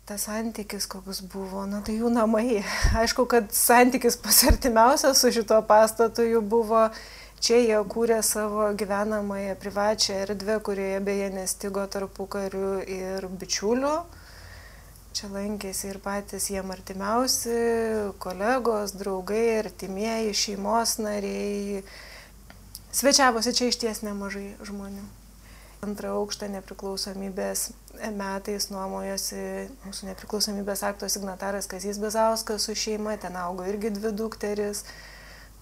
tas santykis koks buvo, na tai jų namai. Aišku, kad santykis pas artimiausias su šito pastatu jų buvo. Čia jie kūrė savo gyvenamąją privačią erdvę, kurioje beje nestigo tarpukariu ir bičiulių. Čia lankėsi ir patys jiem artimiausi, kolegos, draugai, artimieji, šeimos nariai. Svečiavosi čia išties nemažai žmonių. Antrą aukštą nepriklausomybės metais nuomojosi mūsų nepriklausomybės akto signataras Kazys Bizauskas su šeima, ten augo irgi 2 dukteris.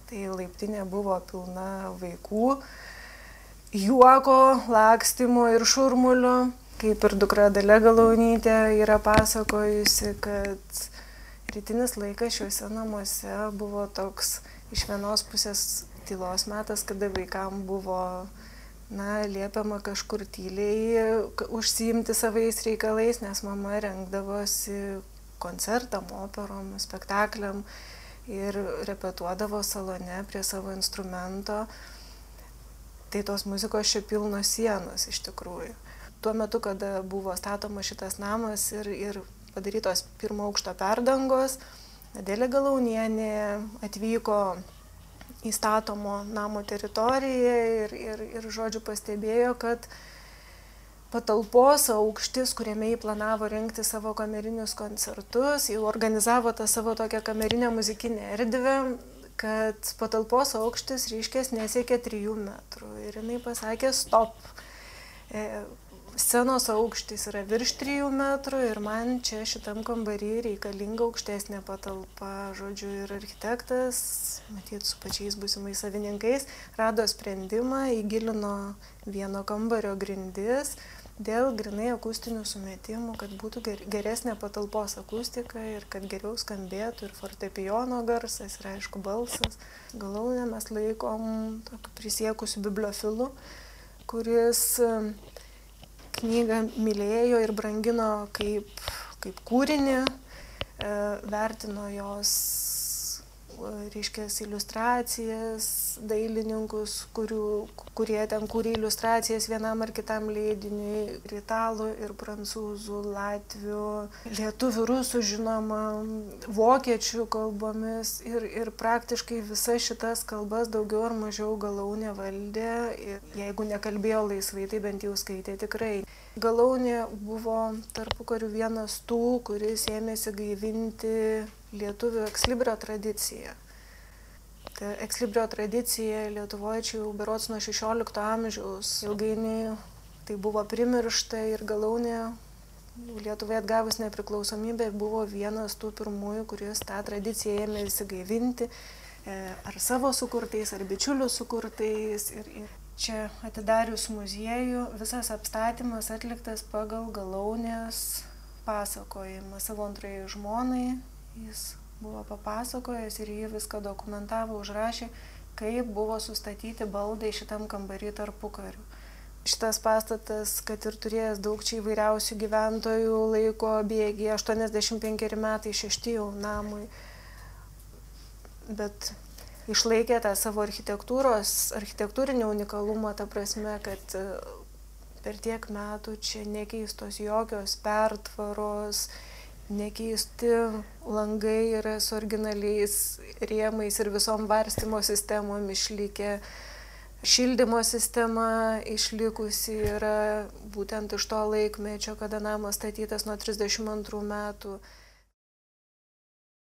Tai laiptinė buvo pilna vaikų, juoko, lakstymo ir šurmulio. Kaip ir dukra Dalia Galaunytė yra pasakojusi, kad rytinis laikas šiuose namuose buvo toks iš vienos pusės tylos metas, kada vaikam buvo liepiama kažkur tyliai užsiimti savais reikalais, nes mama rengdavosi koncertam, operom, spektakliam ir repetuodavo salone prie savo instrumento. Tai tos muzikos čia pilnos sienos iš tikrųjų. Tuo metu, kada buvo statomas šitas namas ir padarytos 1 aukšto perdangos, Adelė Galaunienė atvyko į statomo namo teritoriją ir žodžiu pastebėjo, kad patalpos aukštis, kuriame jį planavo rengti savo kamerinius koncertus, jau organizavo tą savo tokią kamerinę muzikinę erdvę, kad patalpos aukštis reiškės nesiekė 3 metrų. Ir jinai pasakė stop. Scenos aukštis yra virš 3 metrų ir man čia šitam kambarį reikalinga aukštesnė patalpa. Žodžiu, ir architektas, matyt, su pačiais būsimais savininkais, rado sprendimą, įgilino vieno kambario grindis dėl grinai akustinių sumetimų, kad būtų geresnė patalpos akustika ir kad geriau skambėtų ir fortepijono garsas ir aišku balsas. Galaunę mes laikom tokiu prisiekusiu bibliofilu, kuris knygą mylėjo ir brangino kaip kūrinį, vertino jos, reiškės, iliustracijas, dailininkus, kurie ten kūrė iliustracijas vienam ar kitam leidiniui, ir italų, ir prancūzų, latvių, lietuvių, rusų žinoma, vokiečių kalbomis ir praktiškai visas šitas kalbas daugiau ar mažiau Galaunė valdė. Ir jeigu nekalbėjo laisvai, tai bent jau skaitė tikrai. Galaunė buvo tarpukariu vienas tų, kuris ėmėsi gaivinti lietuvių ekslibrio tradiciją. Ta ekslibrio tradicija Lietuvoje čia jau berods nuo 16 amžiaus. Ilgainiui tai buvo primiršta ir Galaunė Lietuvai atgavus nepriklausomybę buvo vienas tų pirmųjų, kuris tą tradiciją ėmėsi gaivinti ar savo sukurtais, ar bičiulių sukurtais. Ir čia atidarius muziejų, visas apstatymas atliktas pagal Galaunės pasakojimą savo antrajai žmonai. Jis buvo papasakojęs ir jį viską dokumentavo, užrašė, kaip buvo sustatyti baldai šitam kambarį tarpukariu. Šitas pastatas, kad ir turėjęs daug čia įvairiausių gyventojų, laiko bėgį, 85 metai, 6 jau namui, bet išlaikė tą savo architektūrinį unikalumą, ta prasme, kad per tiek metų čia nekeistos jokios pertvaros, nekeisti langai yra su originaliais rėmais ir visom varstymo sistemom išlikę. Šildymo sistema išlikusi yra būtent iš to laikmečio, kada namas statytas nuo 32 metų.